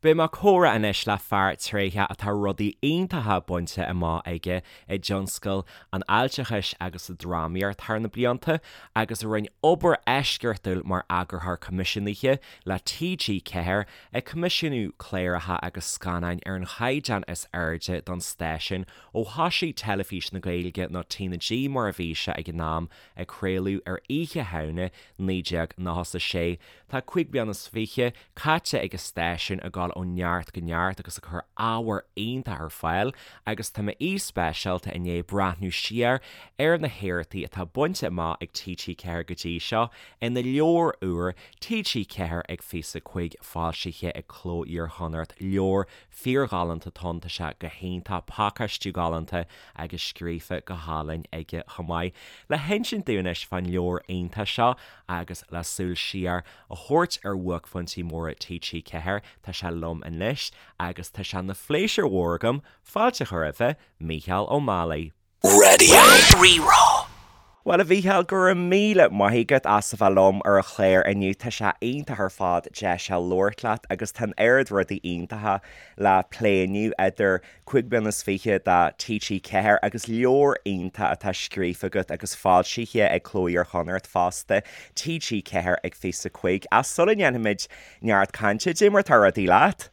Beidh mé ag comhrá anois le fear tréitheach atá rudaí iontacha bainte amach aige i dtionscal an fháilteachais agus sa drámaíocht thar na blianta agus a rinne obair eisceachtúil mar eagarthóir coimisiúnaithe le TG4 ag coimisiúnú cláracha agus scannáin ar an chaighdeán is airde don stáisiún ó thoisigh Teilifís na Gaeilge nó TnaG mar a bhí sé ag an am ag craoladh ar Oíche Shamhna 1996. Tá 25 bliana caite ag an stáisiún ag dul ó neart go neart agus ag cur ábhar iontach ar fáil agus tá m'aoi speisialta i ndiaidh breathnú siar ar na héachtaí atá bainte amach ag TG4 go dtí seo ina leabhar úr TG4 ag 25 foilsithe ag Cló Iar-Chonnacht, leabhar fíorghalánta atá ann, tá sé go hiontach, pacáistiú galánta agus scríofa go hálainn aige chomh maith. Le hinsint dúinn anois fán leabhar iontach seo agus le súil siar a thabhairt ar bhuaicphointí móra TG4, tá sé liom anois agus tá sé ina phléisiúr mhór agam fáilte a chur roimhe, Mícheál Ó Málaigh. Raidió Rí-Rá. Bhuel, a Mhícheáil, go raibh míle maith agat as a bheith liom ar an chlár inniu. Tá sé iontach ar fad deis a labhairt leat agus tá an oiread rudaí iontacha le plé inniu idir 25 bliana de TG4 agus leabhar iontach atá scríofa agat agus foilsithe ag Cló Iar-Chonnacht fosta, TG4 ag 25. Ach sula ndéanfaimid neart cainte, dé mar atá rudaí leat?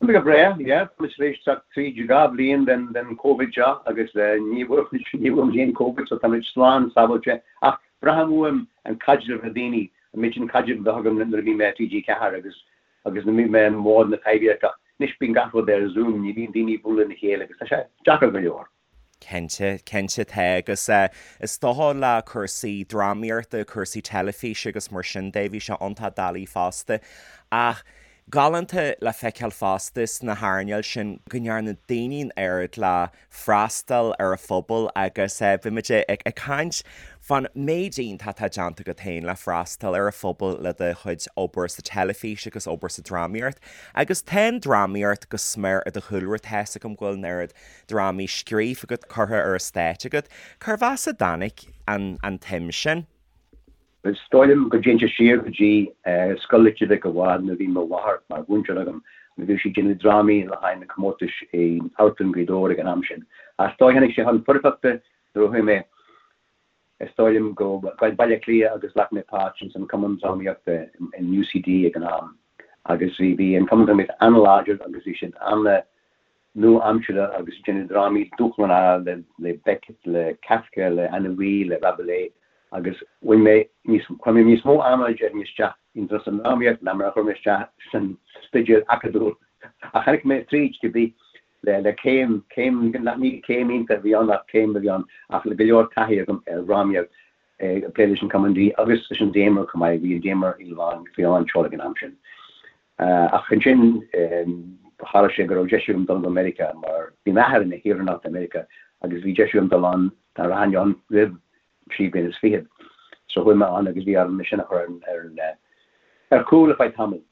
Tá mé go breá, yeah. Tá muid tar éis teacht tríd 2 bhliain den Covid seo agus ní bhfuair muid aon Covid so tá muid slán sábháilte. Ach braithim uaim an caidreamh le daoine, an méid sin caidrimh a bheadh agam nuair a bhí mé i TG4 agus agus nuair a bhí mé i mBord na Taibhdheirce. Anois bíonn gach rud ar Zoom, ní bhíonn daoine ag bualadh lena chéile agus tá sé deacair go leor. Cinnte, cinnte tá agus is dócha le cúrsaí drámaíochta, cúrsaí teilifíse agus mar sin de, bhí sé iontach doiligh fosta. Ach galánta le feiceáil fosta sna hearnáil sin go ndearna daoine an oiread le freastal ar an phobal agus bhí muid ag caint fán méid iontach atá déanta agat féin le freastal ar an phobal le do chuid obair sa teilifís agus obair sa drámaíocht. Agus tá an drámaíocht go smior i do chúlra, tá's agam go bhfuil an oiread drámaí scríofa agat, curtha ar an stáitse agat. Cérbh as a dtáinig an tsuim sin? Is dóigh liom go dtéann sé siar go dtí Scoil Leitir Mhic a' Bhaird nuair a bhí mo mháthair mar mhúinteoir agam agus bhíodh sí ag déanamh drámaí le haghaidh na comórtais i Amharclann Ghaoth Dobhair ag an am sin. Ach is dóigh tháinig sé chun foirfeachta nuair a chuaigh mé, is dóigh liom, go Baile Átha Cliath agus ghlac mé páirt ins an Cumann Drámaíochta in UCD ag an am agus bhí an Cumann Drámaíochta an-láidir agus bhí siad an- nua-aimseartha agus ag déanamh drámaí dúshlánacha le Beckett, le Kafka, le Anouilh, le Rabelais agus bhain mé níos, chuir mé níos mó ama déarfainn isteach ins an drámaíocht ná mar a chuir mé isteach san staidéar acadúil. Ach tháinig mé tríd, cibé, le le céim, céim, nach ní céim iontach a bhí ann ach céim a bhí ann ach le go leor taithí agam ar dhrámaíocht, ag plé leis an Cumann D agus leis an Damer chomh maith, bhí an Damer i lán, faoi lán tseoil ag an am sin. Ach ansin tharla sé go raibh deis agam dul go Meiriceá mar bhí m'athair ina shaoránach de Mheiriceá agus bhí deis agam dul ann dá rachainn ann roimh thrí bliana is fichead. So chuaigh mé ann agus bhí orm é sin a chur ar an ar chúl ar feadh tamaill.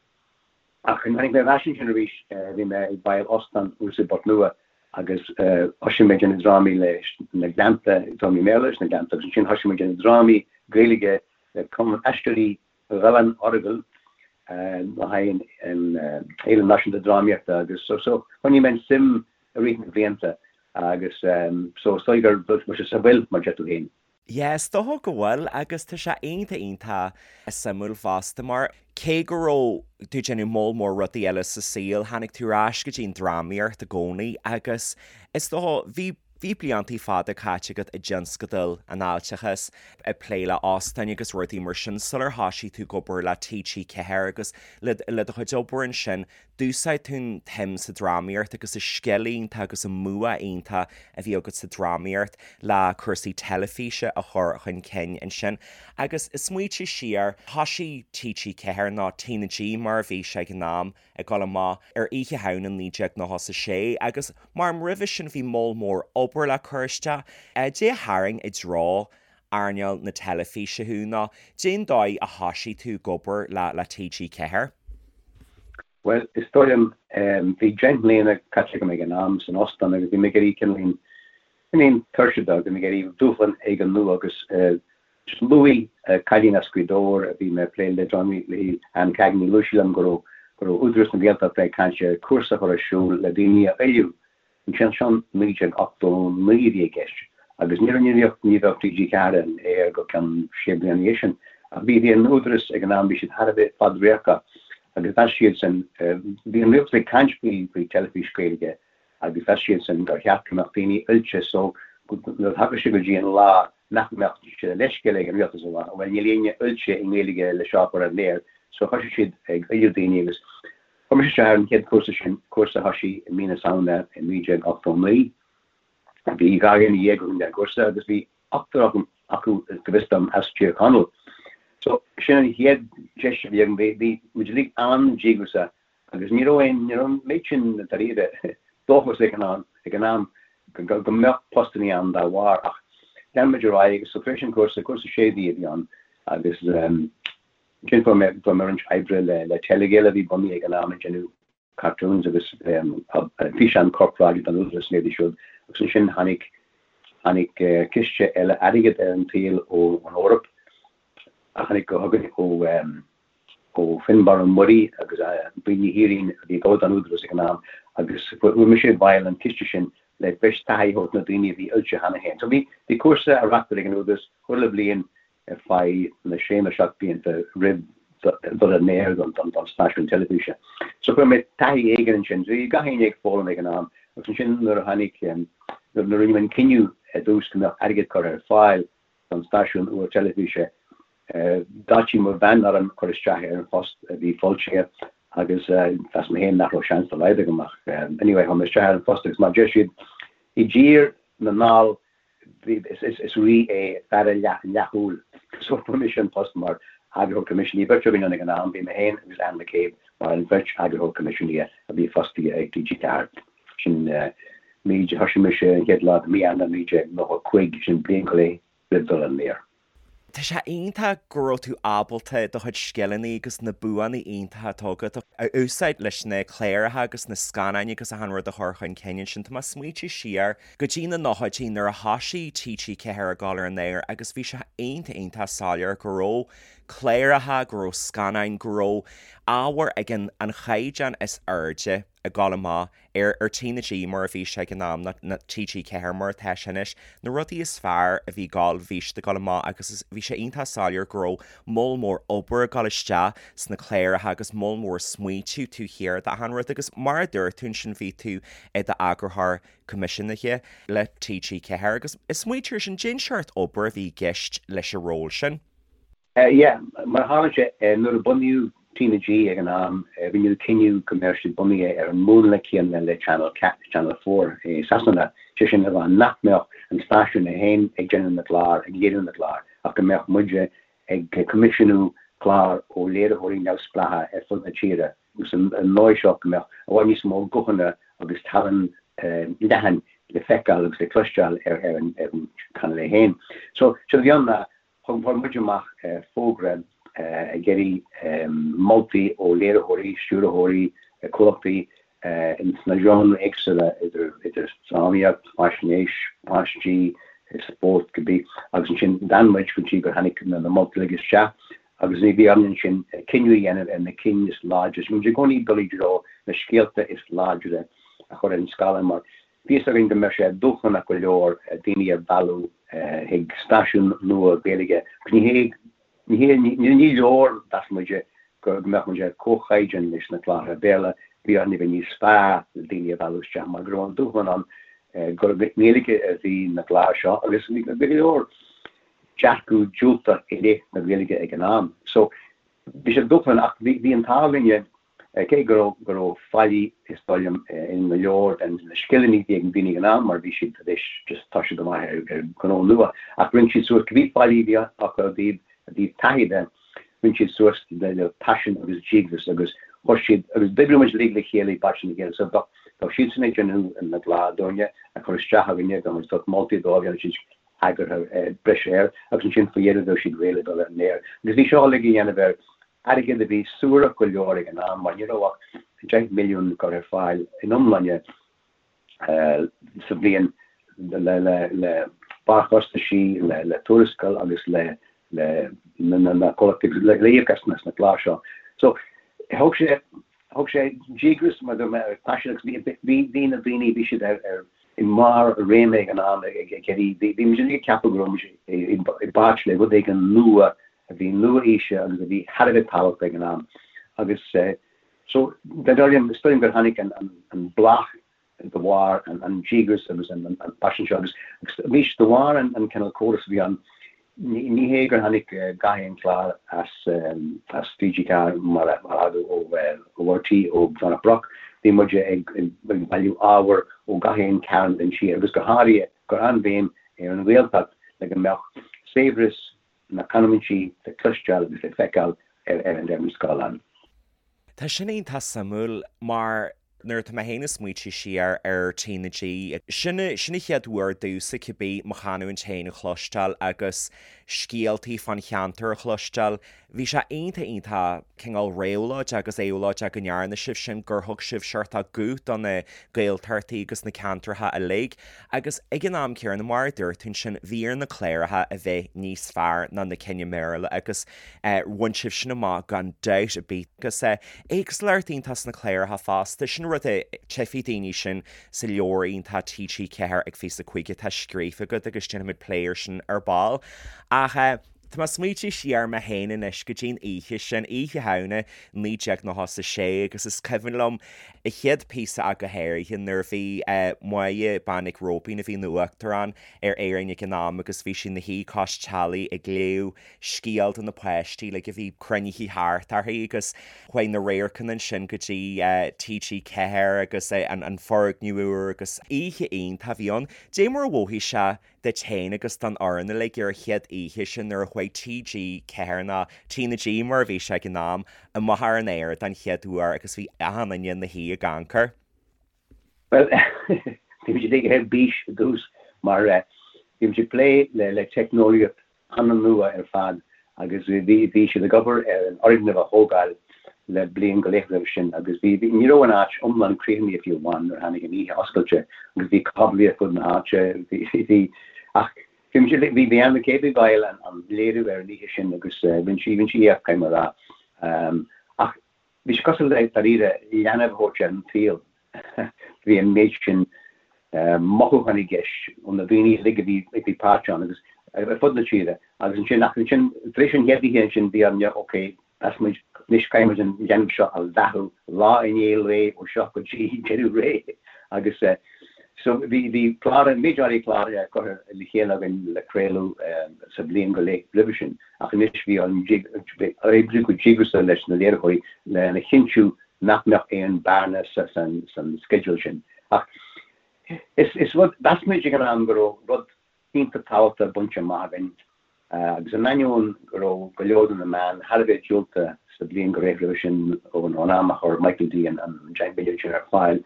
Ach nuair a tháinig mé ar ais ansin arís bhí mé ag baill óstán thuas i bPort Nua agus thosaigh mé ag déanamh drámaí leis na Gleannta, drámaí Béarla leis na Gleannta agus ansin thosaigh mé ag déanamh drámaí Gaeilge le Cumann Aisteoirí Ghleann Earagail le haghaidh an Fhéile Náisiúnta Drámaíochta agus so so choinnigh mé an suim i rith na blianta agus so is dóigh gur bhfuil sé sa bhfuil mar deir tú féin. Yeah, is dócha go bhfuil agus tá sé iontach iontach suimiúil fosta mar cé go raibh tú ag déanamh moll mór rudaí eile sa saol, tháinig tú ar ais go dtí an drámaíocht i gcónaí agus is dócha bhí Bhí bliantaí fada caite agat i dtionscadal an fháilteachais, ag plé le óstáin agus rudaí mar sin sular thoisigh tú ag obair le TG4 agus le le do chuid obair ansin, d'úsáid tú an tsuim sa drámaíocht agus an scil iontach agus an bua iontach a bhí agat sa drámaíocht le cúrsaí teilifíse a chur chun cinn ansin. Agus ag smaoitiú siar, thoisigh TG4, nó TnaG mar a bhí sé ag an am, ag dul amach ar Oíche Shamhna 1996 agus mar roimhe sin bhí moll mór obair le cur isteach. Dé a tharraing i dtreo earnáil na teilifíse thú nó dén dóigh a thoisigh tú ag obair le le TG4? Bhuel, is dóigh liom, bhí 10 mbliana caite agam ag an am san óstán agus bhí mé ag éirí cineáilín, cineáilín tuirseach de, bhí mé ag iarraidh dúshlán éigin nua agus Luaigh cailín as Gaoth Dobhair a bhí mé ag plé le drámaí léi, Anne Cagney, luaigh sí liom go raibh go raibh Údarás na Gaeltachta ag caint ar cúrsa a chur ar siúl le daoine a oiliú. Ansin seo 1989 a bhí i gceist agus ní raibh ní bheadh ní bheadh TG4 ar an aer go ceann sé bliana ina dhiaidh sin. Ach bhí bhí an Údarás ag an am bhí siad thar a bheith fadradharcach agus mheas siadsan bhí an rialtas ag caint faoi faoi teilifís Gaeilge agus mheas siadsan gur cheart go mbeadh daoine oilte so nuair a thagadh sé go dtí an lá nach mbeadh sé de leithscéal ag an rialtas a rá bhuel níl éinne oilte i nGaeilge le seo a chur ar an aer so thoisigh siad ag oiliú daoine agus chuir mise isteach ar an chéad chúrsa sin, cúrsa a thoisigh i mí na Samhna i 1989. Bhí 12 dhuine againn ar an gcúrsa agus bhí ochtar acu go bhfios dom as Tír Chonaill. So sin an chéad deis a bhí agam, bhí muid uilig an-díograiseach Agus ní raibh aon, ní raibh an méid sin dáiríre dóchas ag an am, ag an am go, go mbeadh postannaí ann dá bharr ach lean muid ar aghaidh agus so tar éis an cúrsa, cúrsa sé mhí a bhí ann agus ansin fuair mé, fuair mé roinnt oibre le, le Telegael a bhí bunaithe ag an am ag déanamh cartoons agus físeán corparáide don Údarás na rudaí siúd agus ansin tháinig, tháinig ciste eile airgid ar an tsaol ón Eoraip a tháinig chugainn ó ó Fionnbarra Ó Muirí agus Bríd Ní Thiaráin a bhí ag obair don Údarás ag an am agus fuair mise i bhfeighil an ciste sin le breis taithí a thabhairt na daoine a bhí oilte cheana féin. So bhí bhí cúrsa á reachtáil ag an Údarás chuile bhliain ar feadh na sé nó 7 blianta roimh dul ar an aer don don stáisiún teilifíse. So fuair mé taithí éigin ansin. So bhí gach éinne ag foghlaim ag an am agus ansin nuair a tháinig nuair a rinneadh an cinneadh i dtús go mbeadh airgead curtha ar fáil don stáisiún úr teilifíse. D'áitigh mo bhean orm cur isteach ar an phost a bhí foilsithe agus mheas mé féin nach raibh seans dá laghad agam ach anyway chuir mé isteach ar an phost agus mar a deir siad i dTír na nDall is rí é fear an leathshúil so fuair mise an post mar eagarthóir coimisiúnaithe. Bhí beirt againn ann ag an am, bhí mé féin agus Anne McCabe mar an bheirt eagarthóir coimisiúnaithe a bhí fostaithe ag TG4. Sin mí, thoisigh mise an chéad lá de mí Eanáir 1995, sin bliain go leith roimh dul ar an aer. Tá sé iontach go raibh tú ábalta do chuid scileanna agus na buanna iontacha atá agat a úsáid leis na cláracha agus na scannáin agus achan rud a chur chun cinn ansin. Tá mé ag smaointiú siar go dtí na nóchaidí nuair a thoisigh TG4 ag dul ar an aer agus bhí sé iontach iontach soiléir go raibh cláracha, go raibh scannáin, go raibh ábhar ag an an chaighdeán is airde. ag dul amach ar ar TnaG mar a bhí sé ag an am, nó TG4 mar atá sé anois, na rudaí is fearr a bhí ag dul, bhí siad ag dul amach agus bhí sé iontach soiléir go raibh moll mór obair ag dul isteach sna cláracha agus moll mór smaointiú taobh thiar d'achan rud agus mar a dúirt tú ansin bhí tú i d'eagarthóir coimisiúnaithe le TG4 agus ag smaointiú air sin, cén seort obair a bhí i gceist leis an ról sin. Yeah, mar a tharla sé, nuair a bunaíodh TnaG ag an am, rinneadh cinneadh go mbeadh siad bunaithe ar an múnla céanna le Channel Channel 4 i Sasana, sé sin le rá nach mbeadh an stáisiún é féin ag déanamh na gclár, ag léiriú na gclár, ach go mbeadh muide ag coimisiúnú clár ó léiritheoirí neamhspleácha ar fud na tíre agus an dóigh seo go mbeadh i bhfad níos mó guthanna agus tallann leathan le feiceáil agus le cloisteáil ar an channel é féin. So, séard a bhí ann ná Chuir muid amach fógra ag iarraidh moltaí ó léiritheoirí, stiúrthóirí, comhlachtaí sna genres éagsúla, idir drámaíocht, faisnéis, páistí, spórt, cibé, agus ansin d'fhan muid go dtí gur tháinig na moltaí uilig isteach agus bhí orainn ansin cinneadh a dhéanamh ar na cinn is láidre. Bhí muid i gcónaí ag dul i dtreo na scéalta is láidre a chur ar an scáileán mar Bhí fhios againn go mbeadh sé dúshlánach go leor daoine a mhealladh chuig stáisiún nua Gaeilge agus ní hé, ní hé, ní leor, mheas muide, go mbeadh muid ar comhchaighdeán leis na cláracha Béarla, bhí orainn a bheith níos fearr le daoine a mhealladh isteach mar go raibh an dúshlán ann gur i nGaeilge a bhí na cláir seo agus bhí go leor dearcadh diúltach i leith na Gaeilge ag an am. So bhí sé dúshlánach ach bhí an t-ádh linne Cé go raibh go raibh faillí is dóigh liom in go leor de na scileanna a bhí ag na daoine ag an am mar bhí siad tar éis just toiseacht amach ar ar ghnó nua ach rinne siad suas cibé faillí a bhí acu i dtaobh i dtaobh taithí de rinne siad suas le le paisean agus díograis agus chuir siad agus d'oibrigh muid uilig le chéile i bpáirt lena chéile so bheadh bheadh siadsan ag déanamh na gclár dúinne a chur isteach againne bheadh muid ag tabhairt moltaí dóibh dhéanadh siad eagartha breise air agus ansin faoi dheireadh bheadh siad réidh le dul ar an aer agus bhí seo uilig á dhéanamh ar Airgead a bhí suarach go leor ag an am mar ní raibh ach 10 milliún curtha ar fáil in iomláine sa bhliain le barrchostaisí, le tuarascáil agus le na comhlachtaí le íoc as na cláir seo. So thóg sé. Thug sé díograis mar dúirt mé agus paisean agus bhí bhí na daoine bhí siad ar ar i mbarr a réime ag an am ag ag iarraidh bhí bhí muid uilig ag ceapadh go raibh muid i i bpáirt le rud éigin nua a bhí nua-aoise agus a bhí thar a bheith tábhachtach ag an am agus so is dóigh liom is dóigh liom gur tháinig an an an bláth de bharr an díograis agus an paisean seo agus arís de bharr an cineál córas a bhí ann, ní hé gur tháinig gach aon chlár as as TG4 mar a thagadh ó RTÉ ó Dhomhnach Broc, bhí muid ag bailiú ábhair ó gach aon cearn den tír agus go háirithe ag cur an-bhéim ar an Ghaeltacht le go mbeadh saibhreas na canúintí le cloisteáil agus le feiceáil ar an ar an scáileán. Tá sin iontach suimiúil mar nuair atá mé féin ag smaointiú siar ar TnaG, sin sin an chéad uair domhsa cibé mo chanúint féin a chloisteáil agus scéaltaí fán cheantar a chloisteáil. Bhí sé iontach iontach cineál réabhlóideach agus éabhlóideach go ndearna sibh sin, gur thug sibh seort guth do na Gaeltachtaí agus na ceantracha uilig. Agus ag an am céanna, mar a dúirt tú ansin, bhí ar na cláracha a bheith níos fearr ná na cinn i mBéarla agus bhain sibh sin amach gan dabht ar bith. Agus éagsúlacht iontach sna cláracha fosta, sin rud a tchífidh daoine sin sa leabhar iontach TG4 ag 25 atá scríofa agat agus déanfaimid plé air sin ar ball. Ach tá mé ag smaointiú siar mé féin anois go dtí'n oíche sin, Oíche Shamhna 1996 agus is cuimhin liom an chéad phíosa ach go háirithe nuair a bhí Máire Bean Mhic Róibín a bhí ina Uachtarán ar Éirinn ag an am agus bhí sí ina shuí cois teallaigh ag léamh scéal do na páistí like a bhí cruinnithe thart uirthi agus chuaigh na radharcanna ansin go dtí TG4 agus an foirgneamh úr agus oíche iontach a bhí ann. Dé mar a mhothaigh sé duit féin agus don fhoireann uilig ar an chéad oíche sin nuair a chuaigh TG4 nó TnaG mar a bhí sé ag an am, amach ar an aer don chéad uair agus bhí achan duine ina shuí ag amharc air. Bhuel, bhí muid uilig ar bís i dtús mar bhí muid ag plé le teicneolaíocht an-nua ar fad agus bhí bhí siad ag obair ar an fhoirgneamh a thógáil le bliain go leith roimhe sin agus bhí bhí ní raibh an áit iomlán críochnaithe fiú amháin nuair a tháinig an oíche oscailte agus bhí cáblaí ar fud na háite bhí bhí ach bhí muid bhí bhí Anne McCabe i bhfeighil an an léiriú ar an oíche sin agus rinne sí rinne sí éacht caithfidh mé a rá ach Bhí sé cosúil le, dáiríre, leanbh a thabhairt ar an tsaol. Bhí an méid sin mothúchán i gceist ó na daoine uilig a bhí a bhí páirteach ann agus ar fud na tíre. Agus ansin, ach ansin, tar éis an chéad oíche ansin, bhí orainn, ok, mheas muid, anois caithfidh muid an leanbh seo a bheathú lá i ndiaidh lae ó seo go dtí deireadh ré. Agus so bhí, bhí clár, méid áirithe clár curtha le chéile againn le craoladh sa bhliain go leith roimhe sin. Ach anois bhí orainn oibriú go díograiseach leis na léiritheoirí lena chinntiú nach mbeadh aon bearna san sceideal sin. Ach is rud, mheas muid ag an am go raibh rud iontach tábhachtach bainte amach againn agus in ainneoin go raibh go leor de na meáin thar a bheith diúltach sa bhliain go leith roimhe sin ón am a chuir Michael D an €10 billiún sin ar fáil,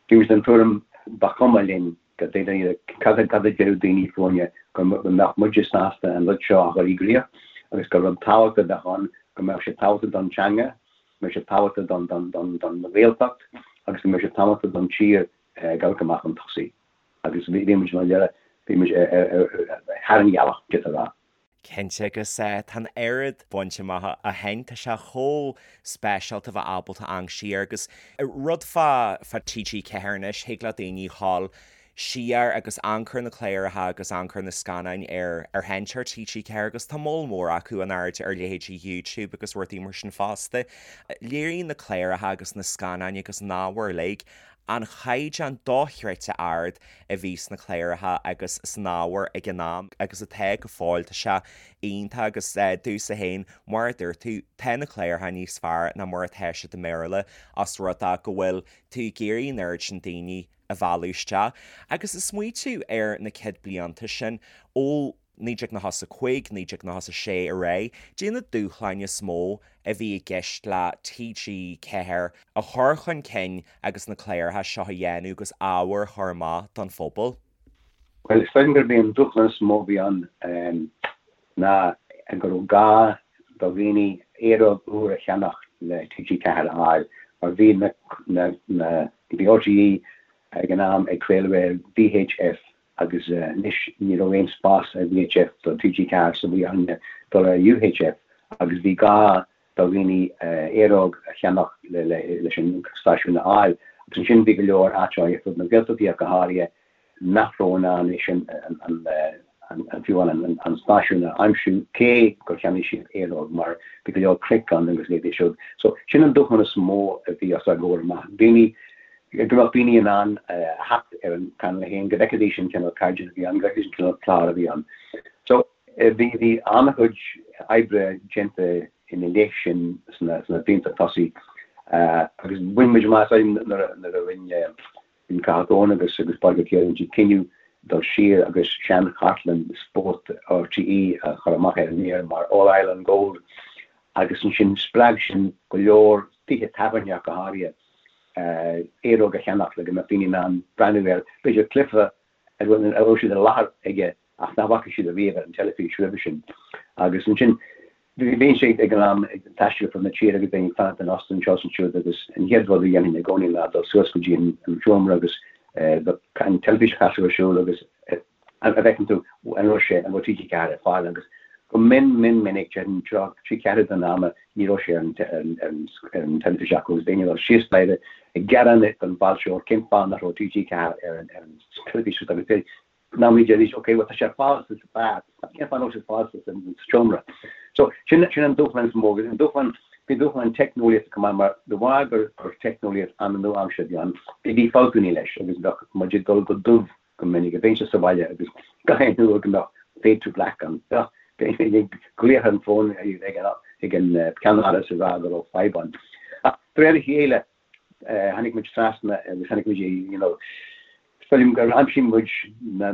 bhí muid den tuairim ba chuma linn Go deimhin, cad a déarfadh daoine fúinne go mbeadh muide sásta an rud seo a chur i gcrích agus gur rud tábhachtach a bheadh ann, go mbeadh sé tábhachtach don teanga, go mbeadh sé tábhachtach don Ghaeltacht agus go mbeadh sé tábhachtach don tír ag amharc amach chun tosaigh. Agus bhí muid, mar dhea, bhí muid thar an ghealach, d'fhéadfá a rá. Cinnte, agus tá an oiread bainte amach ó shin, tá sé chomh speisialta a bheith ábalta amharc siar agus rud fá fá TG4 anois, thig le daoine dhul siar agus amharc ar na cláracha agus amharc ar na scannáin ar ar sheinnteoir TG4 agus tá moll mór acu in airde ar leithéidí YouTube agus rudaí mar sin fosta. Léiríonn na cláracha agus na scannáin agus an ábhar uilig an chaighdeán dochreidte ard a bhí sna cláracha agus san ábhar ag an am agus atá go fóill. Tá sé iontach agus domhsa féin, mar a dúirt tú, tá na cláracha níos fearr ná mar atá siad i mBéarla os rud é go bhfuil tú ag iarraidh an oiread sin daoine a mhealladh isteach. Agus ag smaoitiú ar na céad blianta sin, ó 1995, 1996 ar aghaidh, caidé na dúshláin is mó a bhí i gceist le TG4 a chur chun cinn agus na cláracha seo a dhéanamh agus ábhar a chur amach don phobal? Bhuel, is dóigh liom gurb é an dúshlán is mó a bhí ann ná go raibh gá do dhaoine aeróg úr a cheannach le TG4 a fháil mar bhí na, na, bhí RTÉ ag an am ag craoladh ar VHF agus anois ní raibh aon spás ar VHF do TG4 so bhí orainne dul ar UHF agus bhí gá. do dhaoine aeróg a cheannach leis an stáisiún a fháil. Agus ansin bhí go leor áiteanna ar fud na Gaeltachtaí ach go háirithe nach raibh in ann é sin an fiú amháin an stáisiún a aimsiú cé gur cheannaigh siad aeróg mar bhí go leor cnoic ann agus leithéidí siúd. So sin an dúshlán is mó a bhí os ár gcomhair amach. Daoine, go mbeadh daoine in ann a theacht ar an Channel 1, go bhfeicfidís an cineál caighdeán a bhí ann, go bhfeicfidís an cineál clár a bhí ann. So bhí bhí an-chuid oibre déanta ina leith sin sna blianta tosaigh agus bhain muid amach nuair a rinne Bhí Cathal Goan agus agus Pádraig Ó Ciaráin rinne siad cinneadh dul siar agus sean-chartlann spóirt RTÉ a chur amach ar an aer mar All Ireland Gold agus ansin spreag sin go leor tithe tábhairne ach go háirithe aeróg a cheannach le go mbeadh daoine in ann breathnú ar b'fhéidir cluiche a raibh siad i láthair aige ach nach bhfaca siad ariamh ar an teilifís roimhe sin. Agus ansin, bhínnse ag an am ag taisteal ar fud na tíre agus bheinn ag fanacht in óstán anseo is ansiúd agus an chéad rud a dhéanfainn i gcónaí ná dul suas go dtí an seomra agus an teilifís a chasadh ar siúl agus an bhfeiceann tú an raibh sé, an raibh TG4 ar fáil agus go mion mion minic, déarfainn trí cheathrú den ama, ní raibh sé ar an teilifís acu agus bheinn ag dul síos staighre ag gearán don bhfáilteoir cén fáth nach raibh TG4 ar an teilifís agus Ná ní deiridís, ok, bhuel tá sé ar fáil sa beár, ach cén fáth nach bhfuil sé ar fáil sa seomra? So, sin, sin an dúshlán is mó agus an dúshlán, bhí dúshlán teicneolaíochta chomh maith mar de bharr gur, gur teicneolaíocht an-nua-aimseartha a bhí ann, bhí, bhí fabhtanna leis agus bheadh muid ag dul go dubh go minic, bheinnse sa bhaile agus gach aon uair go mbeadh fade to black ann, bheadh, bheinn ag glaoch ar an bhfón ag an, ag an ceannáras ag rá go raibh fadhb ann. Ach de réir a chéile, tháinig muid trasna agus tháinig muid you know, is dóigh liom gur aimsigh muid na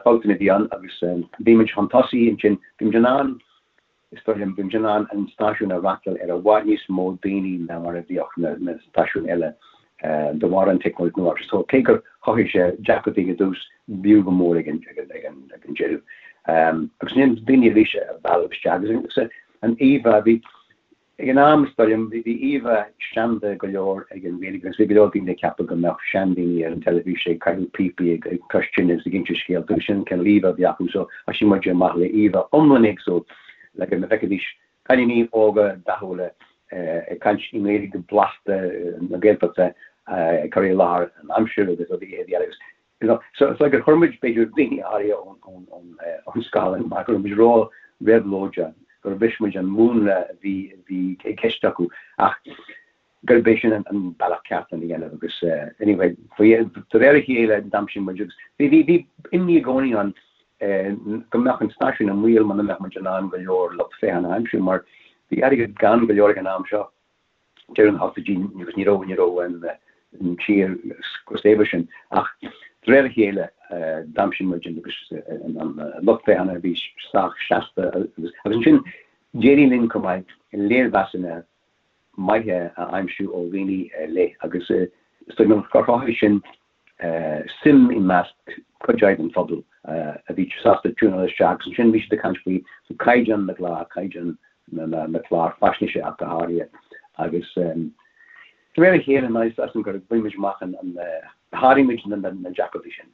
fabhtanna a bhí ann agus bhí muid chun tosaigh ansin, bhí muid in ann, is dóigh liom, bhí muid in ann an stáisiún a fhreastal ar i bhfad níos mó daoine ná mar a bhíodh na stáisiúin eile de bharr an teicneolaíocht nua. So cé gur chothaigh sé deacrachtaí i dtús, b'fhiú go mór ag an deireadh. Agus ansin daoine arís a mhealladh isteach agus an íomhá, bhí, Ag an am, is dóigh liom, bhí íomhá seanda go leor ag an Ghaeilge agus bhí go leor daoine ag ceapadh go mbeadh seandaoine ar an teilifís ag caitheamh píopaí ag cois tine agus ag inse scéalta agus sin an cineál íomhá a bhí acu so thoisigh muid amach le íomhá iomlán éagsúil le go bhfeicfidís cailíní óga dathúla ag caint i nGaeilge blasta na Gaeltachta ag cur i láthair an aimsir agus rudaí eile agus You know, so it's like gur chuir muid b'fhéidir daoine áirithe ón ón scáileán mar go raibh muid ró-réabhlóideach, gur bhris muid an múnla a bhí a bhí i gceist acu ach gurb é sin an bealach ceart lena dhéanamh agus anyway faoi de réir a chéile d'aimsigh muid agus bhí bhí bhí imní i gcónaí ann go mbeadh an stáisiún i mbaol muna mbeadh muid in ann go leor lucht féachana a aimsiú mar bhí airgead gann go leor ag an am seo. deireadh na hochtóidí agus ní raibh, ní raibh an tír chomh saibhir sin. Ach de réir a chéile d'aimsigh muid agus an lucht féachana a bhí sách seasta agus ansin d'éirigh linn chomh maith léirmheasanna maithe a aimsiú ó dhaoine ar leith agus is dóigh liom gur chothaigh sin suim i measc cuid áirithe den phobal a bhí sásta tiúnáil isteach agus ansin bhí siad ag caint faoi caighdeán na gclár, caighdeán na gclár faisnéise ach go háirithe agus de réir a chéile is dóigh liom gur bhain muid amach an, sháraigh muid na deacrachtaí sin.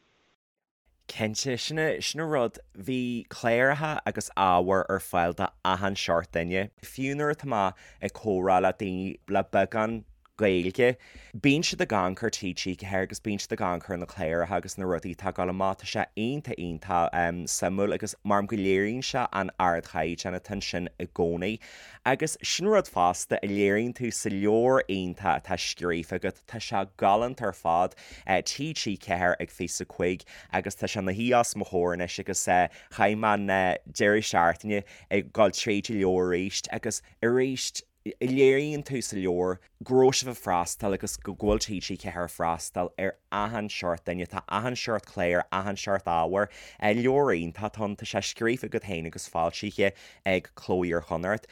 Cinnte, sin sin an rud, bhí cláracha agus ábhar ar fáil do achan seort duine. Fiú nuair atá mé ag comhrá le daoine le beagán Gaeilge. Bíonn siad ag amharc ar TG4 agus bíonn siad ag amharc ar na cláracha agus na rudaí atá ag dul amach. Tá sé iontach iontach suimiúil agus mar go léiríonn sé an ardchaighdeán atá ansin i gcónaí. Agus sin rud fosta a léiríonn tú sa leabhar iontach atá scríofa agat, tá sé galánta ar fad, TG4 ag Fios a Cuig agus tá sé ina shuí os mo chomhair anois agus chaith mé an deireadh seachtaine ag dul tríd an leabhar arís agus arís Léiríonn tú sa leabhar go raibh sibh ag freastal agus go bhfuil TG4 ag freastal ar achan seort duine, tá achan seort clár, achan seort ábhair. Leabhar iontach atá ann, tá sé scríofa agat féin agus foilsithe ag Cló Iar-Chonnacht.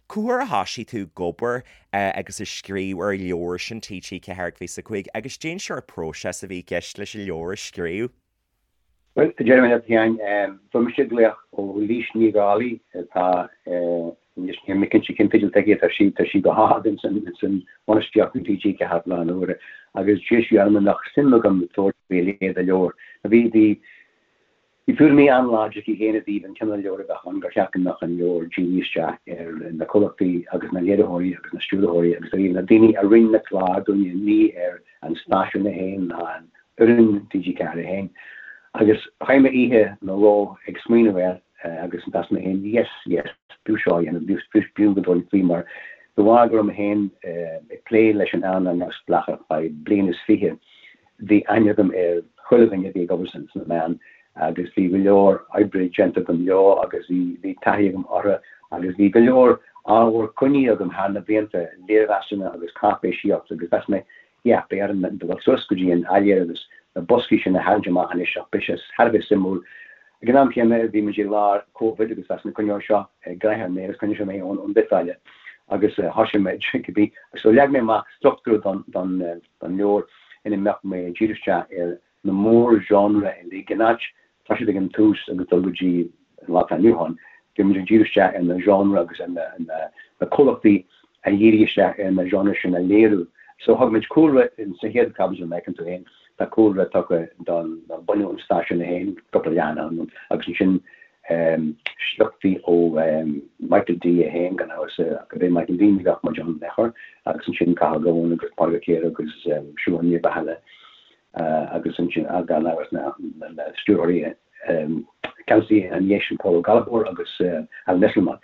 Cá huair a thoisigh tú ag obair agus ag scríobh ar an leabhar sin TG4 ag Fios a Cuig agus cén seort próiseas a bhí i gceist leis an leabhar a scríobh? Bhuel, a déarfaidh mé leat féin, fuair mise glaoch ó Laoise Ní Dhálaigh atá anois, níl mé cinnte cén teideal atá aici, tá sí, tá sí go hard ins an, ins an bhainistíocht in TG4 faoi láthair na huaire, agus d'iarr sí orm an mbeadh suim agam tabhairt faoi a leithéid de leabhar. Bhí, bhí. Bhí tuairimí an-láidir aici féin i dtaobh an cineál leabhair a bheadh ann, gur cheart go mbeadh an leabhar dírithe isteach ar na comhlachtaí agus na léiritheoirí agus na stiúrthóirí agus ar na daoine a rinne na cláir dúinne, ní ar an stáisiún é féin ná an fhoireann TG4 é féin. Agus chaith mé oíche nó dhó ag smaoineamh air agus mheas mé féin, yes, yes, b'fhiú seo a dhéanamh, b'fhiú go dtabharfainn faoi mar de bharr go raibh mé féin ag plé leis an earnáil neamhspleách ar feadh bliain is fiche, Bhí aithne agam ar chuile dhuine a bhí ag obair sna meáin agus bhí go leor oibre déanta agam leo agus bhí taithí agam orthu agus bhí go leor ábhar coinnithe agam thar na blianta, léirmheasanna agus cáipéisíocht agus mheas mé, yeah, beidh orm dul suas go dtí an áiléar agus na boscaí sin a tharraingt amach anois ach beidh sé thar a bheith suimiúil. Ag an am céanna bhí muid i lár Covid agus mheas mé coinneoidh seo gnoitheach mé agus coinneoidh sé mé ón bhiotáille agus thosaigh mé cibé. So leag mé amach struchtúr don don leabhar ina mbeadh mé ag díriú isteach ar na mór-genre uilig, in áit toiseacht ag an tús agus dul go dtí an lá atá inniu ann, bhí muid ag díriú isteach ar na genre agus ar na comhlachtaí a dhírigh isteach ar na genre sin a léiriú. So thug muid cúlra sa chéad chaibidil, mar a fheiceann tú féin, tá cúlra tugtha don bunú an stáisiúin é féin, cúpla leathanach ann, agus ansin sleachtaí ó Michael D é féin, gan amhras, gurb é Michael D ní bheadh muid ann in aon chor, agus ansin Cathal Goan agus Pádraig Ó Ciardha agus Siobhán Ní Rathaille agus ansin gan amhras na stiúrthóirí ceannasaí ina dhiaidh sin Pól Ó Gallchóir agus Alan Esslemont.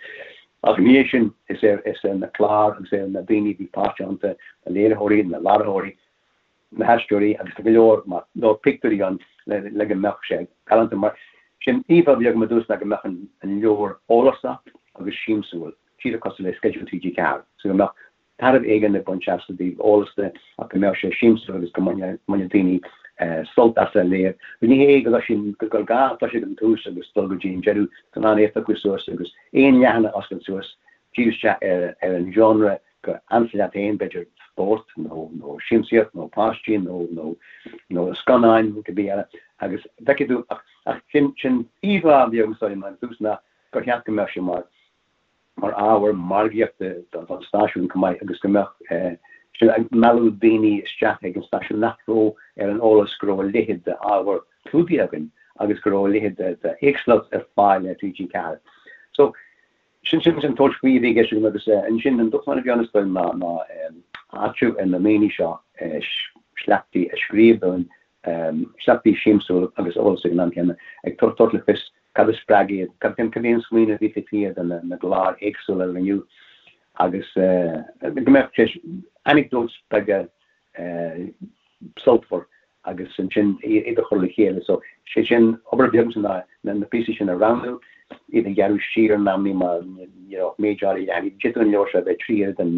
Ach ina dhiaidh sin is ar na cláir agus ar na daoine a bhí páirteach iontu, na léiritheoirí, na láithreoirí, na haisteoirí agus tá go leor leor pictiúirí ann le go mbeadh sé galánta. Mar sin, íomhá a bhí agam i dtús ná go mbeadh an leabhar eolasach agus siamsúil, díreach cosúil le sceideal TG4, so go mbeadh tairbhe éigin le baint as i dtaobh eolas de ach go mbeadh sé siamsúil agus go mbainfeadh daoine sult as a léamh. Ní hé go gur gá toiseacht ag an tús agus dul go dtí an deireadh, tá in ann é a phiocadh suas agus aon leathanach a oscailt suas, díriú isteach ar an genre gur ansa leat féin, b'fhéidir spórt nó nó siamsaíocht nó páistí nó nó nó scannáin nó cibé eile agus feicfidh tú ach ach sin sin íomhá a bhí agam is dóigh liom ón tús ná gur cheart go mbeadh sé mar mar ábhar margaíochta don don stáisiún chomh maith agus go mbeadh sé ag mealladh daoine isteach ag an stáisiún nach raibh ar an eolas go raibh a leithéid d'ábhar clúdaithe againn agus go raibh a leithéid de de éagsúlacht ar fáil ar TG4. So Sin sin an tabhairt faoi a bhí i gceist agam agus ansin an dúshlán a bhí ann is dóigh ná ná áitiú ar na ndaoine seo sleachtaí a scríobh dúinn, sleachtaí siamsúil agus eolas ag an am céanna, ag tabhairt le fios cad a spreag iad, cad cad é an smaoineamh a bhí taobh thiar de na cláir éagsúla a rinneadh agus go mbeadh sé anecdotes beaga sultmhar agus ansin iad a chur le chéile. So, sé sin, obair bheag ansin ná na píosaí sin a roghnú, iad a ghearradh siar in amannaí mar ní raibh méid áirithe leathanaigh. D'fhéadfadh an leabhar seo a bheith 3 oiread an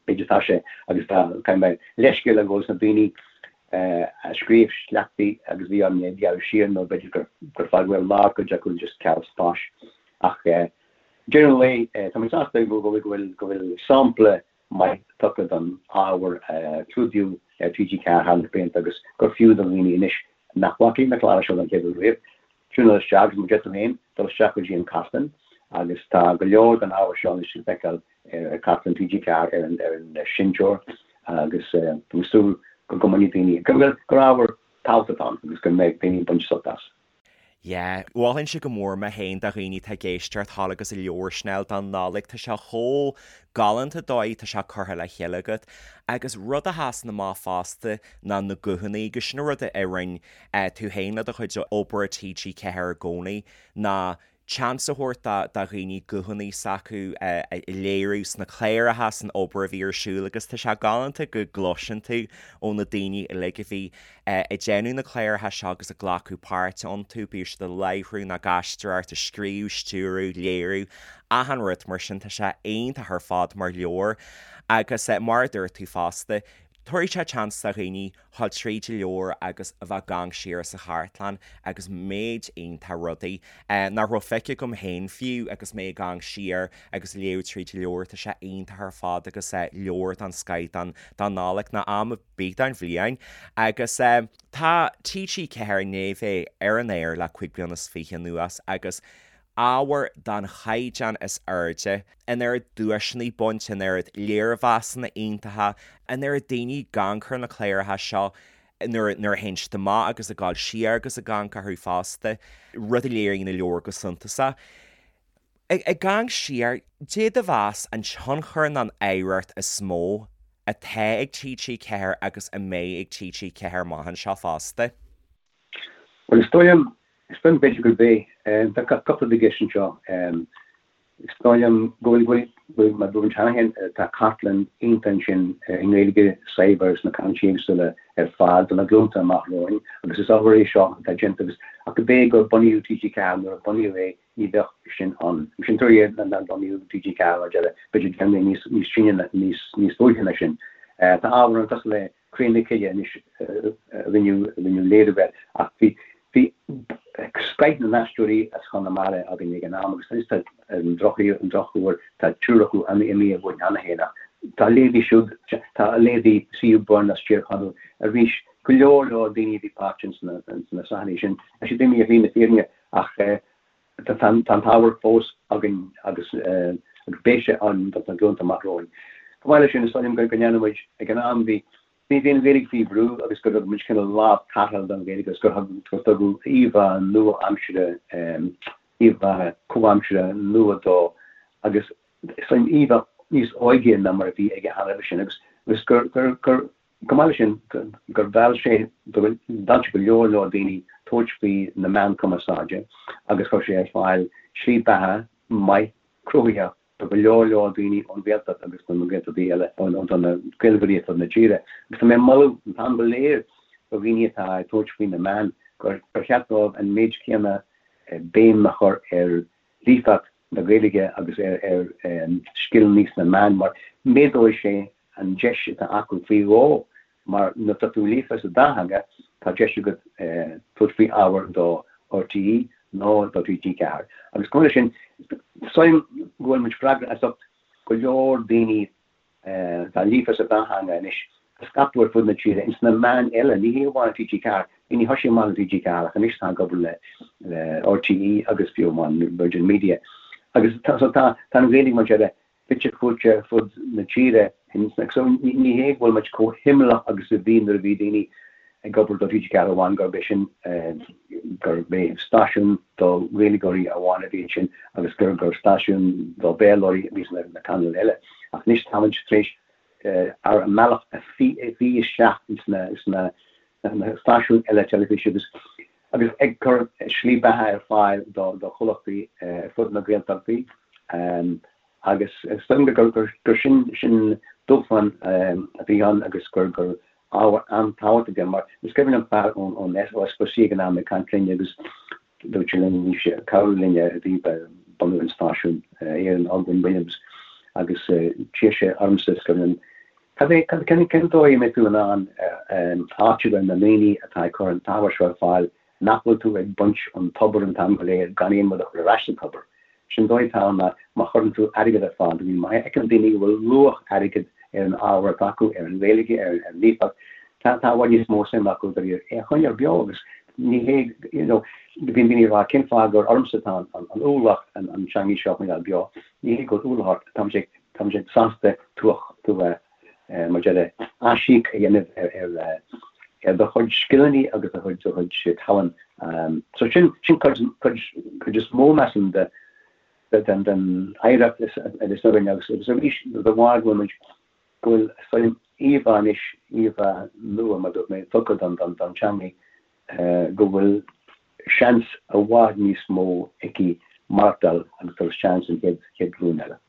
méid atá sé agus tá, caithfidh mé leithscéal a ghabháil leis na daoine a scríobh sleachtaí agus bhí orm iad a ghearradh siar nó b'fhéidir gur gur fágadh ar lár cuid acu just ceal spáis. Ach deireadh an lae, tá mé sásta go bhfuil go bhfuil go bhfuil sampla maith tugtha don ábhar a clúdaíodh ar TG4 thar na blianta agus gur fiú do dhaoine anois nach bhfaca na cláir seo don chéad uair riamh, tiúnáil isteach agus mar a deir tú féin, dul isteach go dtí an cartlann agus tá go leor den ábhar seo anois le feiceáil ar chartlann TG4 ar an ar an seinnteoir agus tá mé ag súil go go mbainfidh daoine, go gur ábhar tábhachtach atá ann agus go mbeidh daoine ag baint sult as. Yeah, mholfainnse go mór mé féin do dhaoine atá ag éisteacht thall agus an leabhar sin a fháil don Nollaig, tá sé chomh galánta dóigh tá sé curtha le chéile agat. Agus rud a sheasann amach fosta ná na guthanna agus sin an rud a rinne tú féin le do chuid obair i TG4 i gcónaí ná seans a thabhairt do dhaoine guthanna s'acu a léiriú sna cláracha, san obair a bhí ar siúl agus tá sé galánta go gcloiseann tú ó na daoine uilig a bhí ag déanamh na cláracha seo agus ag glacadh páirte iontu, bíodh siad ag láithriú nó ag aisteoireacht, ag scríobh, stiúradh, léiriú, achan rud mar sin, tá sé iontach ar fad mar leabhar agus mar a dúirt tú fosta, tabharfaidh sé seans do dhaoine dhul tríd an leabhar agus a bheith ag amharc siar sa chartlann agus méid iontach rudaí nach raibh feicthe agam féin fiú agus mé ag amharc siar agus léamh tríd an leabhar. Tá sé iontach ar fad agus leabhar den scoith don Nollaig nó am ar bith den bhliain. Agus tá TG4 i ndiaidh bheith ar an aer le 25 bliana anuas agus ábhar den chaighdeán is airde, an oiread duaiseanna bainte, an oiread léirmheasanna iontacha, an oiread daoine ag amharc ar na cláracha seo. Nuair nuair a théann siad amach agus ag dul siar agus ag amharc orthu fosta, rud a léiríonn na leabhair go suntasach. Ag amharc siar, caidé do mheas an tionchar nó an oidhreacht is mó atá ag TG4 agus a mbeidh ag TG4 amach anseo fosta? Bhuel, is dóigh liom, is dóigh liom b'fhéidir gurb é, tá cúpla rud i gceist anseo. Is dóigh liom go bhfuil, go bhfuil, go bhfuil, mar a dúirt cheana féin, tá cartlann iontach ansin i nGaeilge saibhir sna canúintí éagsúla ar fad do na glúnta amach romhainn agus is obair é seo atá déanta agus ach go b'é gur bunaíodh TG4 nuair a bunaíodh é ní bheadh sin ann. Sin tuairim nár bunaíodh TG4 mar deire, b'fhéidir deich mbliana níos, níos sine, níos, níos luaithe ná sin. Tá ábhar ann cosúil le Cré na Cille anois a rinneadh léiriú air ach bhí bhí scoith na n-aisteoirí as Chonamara againn ag an am agus anois tá ar an drochuair tá triúr acu imithe uainn cheana féin ach tá a leithéidí siúd, tá a leithéidí C.U. Byrne as Tír Chonaill arís, go leor leor daoine a bhí páirteach ins na sraitheanna sin, tá siad imithe ar shlí na fírinne ach Tá an t-ábhar fós againn agus beidh sé ann do na glúnta amach romhainn. Chomh maith leis sin, is dóigh liom go ndearna muid, ag an am, bhí bhí an Ghaeilge faoi bhrú agus gur thug muid cineál lámh tarrthála don Ghaeilge agus gur gur tugadh íomhá nua-aimsire, íomhá comhaimseartha nua dó agus is dóigh liom íomhá níos óige ná mar a bhí aige cheana roimhe sin agus agus gur gur gur Chomh maith leis sin, gur mheall sé mheall sé go leor leor daoine tabhairt faoi na meáin cumarsáide agus chuir sé ar fáil slí beatha maith cruthaitheach do go leor leor daoine ón Ghaeltacht agus do na Gaeltachtaí eile, do na Gaeilgeoirí ar fud na tíre. Agus tá mé ag moladh an t-am go léir do dhaoine atá ag tabhairt faoi na meáin gur cheart dóibh an méid céanna béim a chur ar líofacht na Gaeilge agus ar scileanna sna meáin mar méadóidh sé an deis atá acu faoi dhó mar nuair atá tú líofa sa dá theanga tá deis agat tabhairt faoi ábhar do RTÉ nó do TG4. Agus chomh maith leis sin, is dóigh liom go bhfuil muid freagrach as ucht go leor daoine atá líofa sa dá theanga anois a scaipeadh ar fud na tíre ins na meáin eile, ní hé amháin TG4, daoine a thosaigh amach le TG4 ach anois tá ag obair le RTÉ agus fiú amháin Virgin Media. Agus tá tá an Ghaeilge mar deir fite fuaite ar fud na tíre. So ní hé go bhfuil muid chomh himeallach agus a bhí nuair a bhí daoine ag obair do TG4 amháin gurb é sin gurb é stáisiún do Ghaeilgeoirí amháin a bhí ansin agus gur gur stáisiún do Bhéarlóirí a bhí sna na cainéil eile. Ach anois tá muid tar éis ár mbealach a fhí isteach ins na sna na stáisiúin eile teilifíse agus agus ag cur slí beatha ar fáil do do chomhlachtaí ar fud na Gaeltachtaí agus is dóigh liom gur gur sin sin dúshlán a bhí ann agus gur gur ábhar an-tábhachtach é mar is cuimhin liom fear ón ón S4C ag an am ag caint linn agus dúirt sé linn bhí sé ag cabhrú linn i dtaobh bunú an stáisiúin Aaron Ogwen Williams agus d'iarr sé ormsa is cuimhin liom Cad é, cén cén dóigh a mbeidh tú in ann áiteamh ar na ndaoine atá ag cur an t-ábhar seo ar fáil nach bhfuil tú ag baint ón tobar an t-am go léir gan aon rud a chur ar ais sa tobar? Sin dóigh atá ann ná má chuireann tú airgead ar fáil do dhaoine, má fheiceann daoine go bhfuil luach airgid ar an ábhar atá acu, ar an Ghaeilge, ar an líofacht, tá tá i bhfad níos mó suim acu do é a choinneáil beo agus ní hé, you know, bíonn daoine ag rá cén fáth gur ormsa atá an an ualach an an teangaidh seo a choinneáil beo, ní hé go bhfuil ualach ort, tá muid ag Tá muid sásta tú a, mar deir, aisíoc a dhéanamh ar ar do chuid scileanna agus do chuid do chuid tallann. So sin sin cuid cuid cuid is mó measaim de den den oidhreacht is is againn agus agus arís de bharr go bhfuil muid go bhfuil is dóigh liom íomhá anois íomhá nua mar dúirt mé tugtha don don don teangaidh go bhfuil seans i bhfad níos mó aici maireachtáil agus dul isteach san chéad chéad ghlúin eile.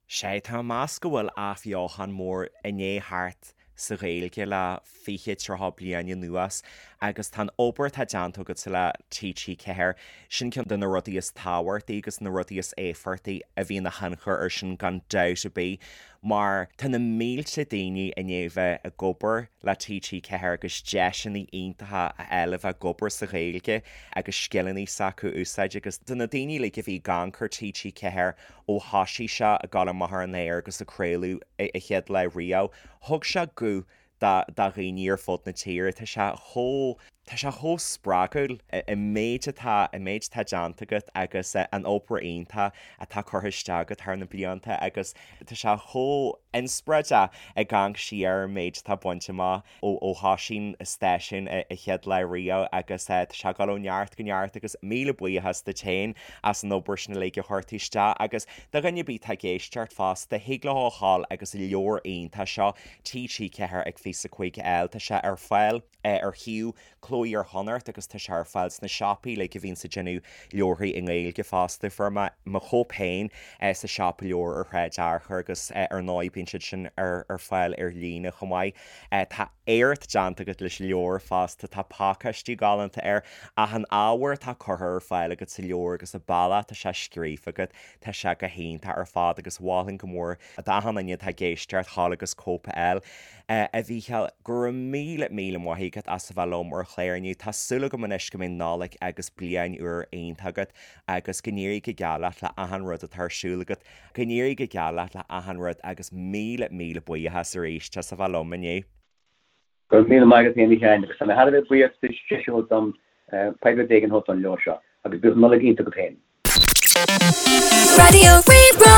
Sea, tá mé ag meas go bhfuil athbheochan mór i ndiaidh theacht sa Ghaeilge le 20, 30 bliain anuas agus tá an obair atá déanta agatsa le TG4, sin ceann de na rudaí is tábhachtaí agus na rudaí is éifeachtaí a bhí ina thionchar air sin gan dabht ar bith mar tá na mílte daoine i ndiaidh bheith ag obair le TG4 agus deiseanna iontacha a fháil a bheith ag obair sa Ghaeilge agus scileanna s'acu a úsáid agus do na daoine uilig a bhí ag amharc ar TG4 ó thosaigh sé ag dul amach ar an aer agus ag craoladh a chéad lá riamh, thug sé guth do dhaoine ar fud na tíre. Tá sé chomh. Tá sé chomh spreagúil, an méid atá, an méid atá déanta agat agus an obair iontach atá curtha isteach agat thar na blianta agus tá sé chomh inspioráideach ag amharc siar ar an méid atá bainte amach ó ó thosaigh an stáisiún an chéad lá riamh agus tá sé ag dul ó neart go neart agus míle buíochas duit féin as an obair sin uilig a chuir tú isteach agus do dhuine ar bith atá ag éisteacht fosta, thig leo a ghabháil agus an leabhar iontach seo TG4 ag Fios 5 a fháil, tá sé ar fáil. ar shuíomh Cló Iar-Chonnacht agus tá sé ar fáil sna siopaí uilig a bhíonns ag déanamh leabharthaí i nGaeilge fosta. Fuair mé mo chóip féin sa siopa leabhar ar Shráid Fhearchair agus ar ndóigh bíonn siad sin ar fáil ar líne chomh maith. Tá éacht déanta agat leis an leabhar fosta, tá pacáistiú galánta air ach an ábhar atá curtha ar fáil agat sa leabhar agus an bealach atá sé scríofa agat, tá sé go hiontach ar fad agus mholfainn go mór d'achan duine atá ag éisteacht ghabháil agus cóip a fháil. A Mhícheáil, go raibh míle, míle maith agat as a bheith liom ar an chlár inniu. Tá súil agam anois go mbeidh Nollaig agus Bliain Úr iontach agat agus go n-éirí go geal leat le achan rud atá ar siúl agat. Go n-éirí go geal leat le achan rud agus míle, míle buíochas arís as a bheith liom inniu. Go raibh míle maith agat féin a Sheáin agus tá mé thar a bheith buíoch duit deis a thabhairt dom poiblíocht éigin a thabhairt don leabhar seo agus bíodh Nollaig iontach agat féin. Raidió Rí-Rá.